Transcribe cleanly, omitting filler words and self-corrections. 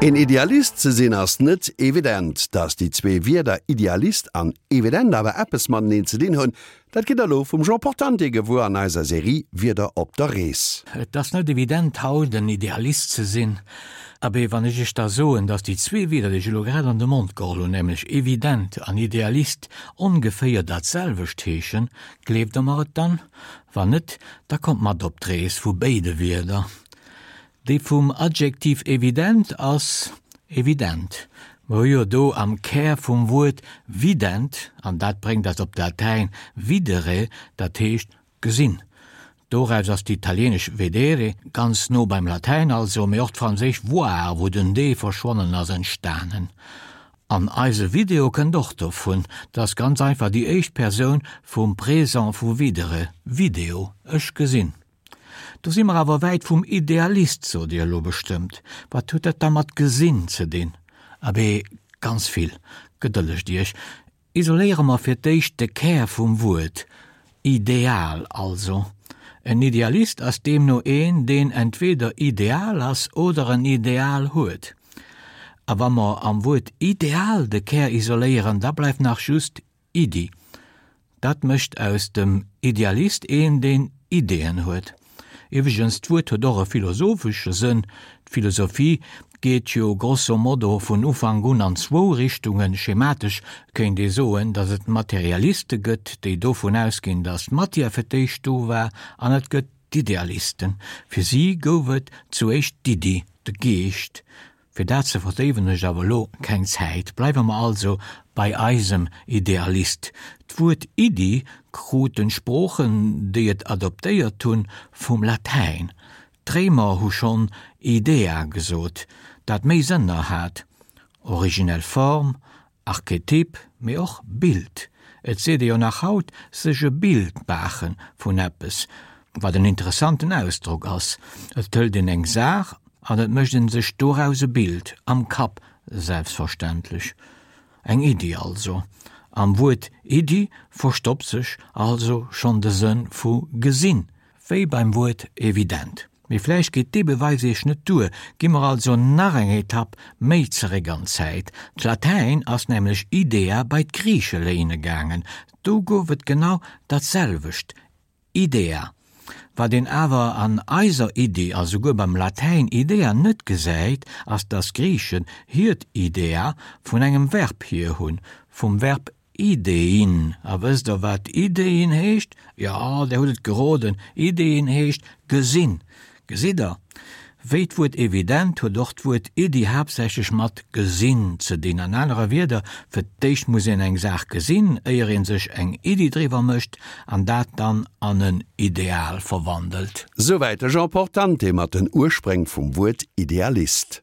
Een Idealist ze sinn ass net evident. Datt déi zwee Wierder Idealist an evident awer eppes mateneen ze dinn hunn, dat gitt der elo vum Jean Portante gewuer an eiser Serie Wierder op der Rees. Et ass net evident haut en Idealist ze sinn. Abee, wann ech iech da soen, datt déi zwee Wierder, déi ech elo grad an de Mond geholl hunn, nämlech evident an Idealist, ongeféier dat selwecht heeschen, gleeft der mer et dann? Wann net, da kommt mat op d'Rees vu béide Wierder. Déi vum Adjektiv evident ass evident. Mer hu jo do am Kär vum Wuert vident, an dat bréngt eis op d'Latäin videre, dat heescht gesinn. Doraus ass d'italieenesch vedere, ganz no beim Latäin also, mee och d'franséisch voir, wou den d verschwonnen ass, entstanen. An eise Video kënnt och dovun, dat ass ganz einfach déi éischt Persoun vum Présent vu videre, video, ech gesinn. Do si mer awer wäit vum Idealist, sot Dir elo bestëmmt. Wat huet dat da mat gesinn ze dinn? Abee, ganz vill. Gedëllegt Iech, isoléiere mer fir d'éischt de Kär vum Wuert, Ideal also. En Idealist ass deemno een, deen entweder ideal ass oder en Ideal huet. A wa mer am Wuert Ideal de Kär isoléieren, da bleift nach just Iddi. Dat mécht aus dem Idealist een, deen Ideeën huet. Iwwregens, d'Wuert huet och e philosophesche Sënn. D'Philosophie geet jo grosso modo vun Ufank un an zwou Richtungen. Schematesch kéint ee soen, datt et Materialiste gëtt, déi dovun ausginn, datt d'Matière fir d'éischt do war, an et gëtt d'Idealisten. Fir si gouf et zuéischt d'Iddi, de Geescht. Fir dat ze verdéiwen hunn ech awer elo keng Zäit. Bleiwe mer also bei eisem Idealist. D'Wuert Iddi kruten d'Sproochen, déi et adoptéiert hunn, vum Latäin. D'Réimer hu schonn idea gesot, dat méi Sënner hat, originell Form, Archetyp, mee och Bild. Et seet ee jo nach haut, sech e Bild maache vun eppes, wat en interessanten Ausdrock ass. Et hëlt een eng Saach an et mécht een sech doraus e Bild, am Kapp selbstverständlech. Eng Iddi also. Am Wuert Iddi verstoppt sech also schonn de Sënn vu gesinn, wéi beim Wuert evident. Mee vläicht geet dee Beweis iech net duer, gi mer also nach eng Etapp méi zeréck an d'Zäit. D'Latäin ass nämlech idea bei d'Griiche léine gaangen, do gouf et genau dat selwecht, idea. Wat een awer an eiser Iddi a souguer beim Latäin idea net gesäit, ass dass d'Griichen hiert idea vun engem Verb hier hunn, vum Verb Ideein. A wësst der wat Ideein heescht? Jo, der hutt et geroden, Ideein heescht gesinn. Gesitt der? Wéi d'Wuert evident huet och d'Wuert Iddi haaptsächlech mat gesinn ze dinn. An anere Wierder, fir d'éischt muss een eng Saach gesinn, éier ee sech eng Iddi driwwer mécht an dat dann an en Ideal verwandelt. Souwäit de Jean Portante mat den Urspréng vum Wuert Idealist.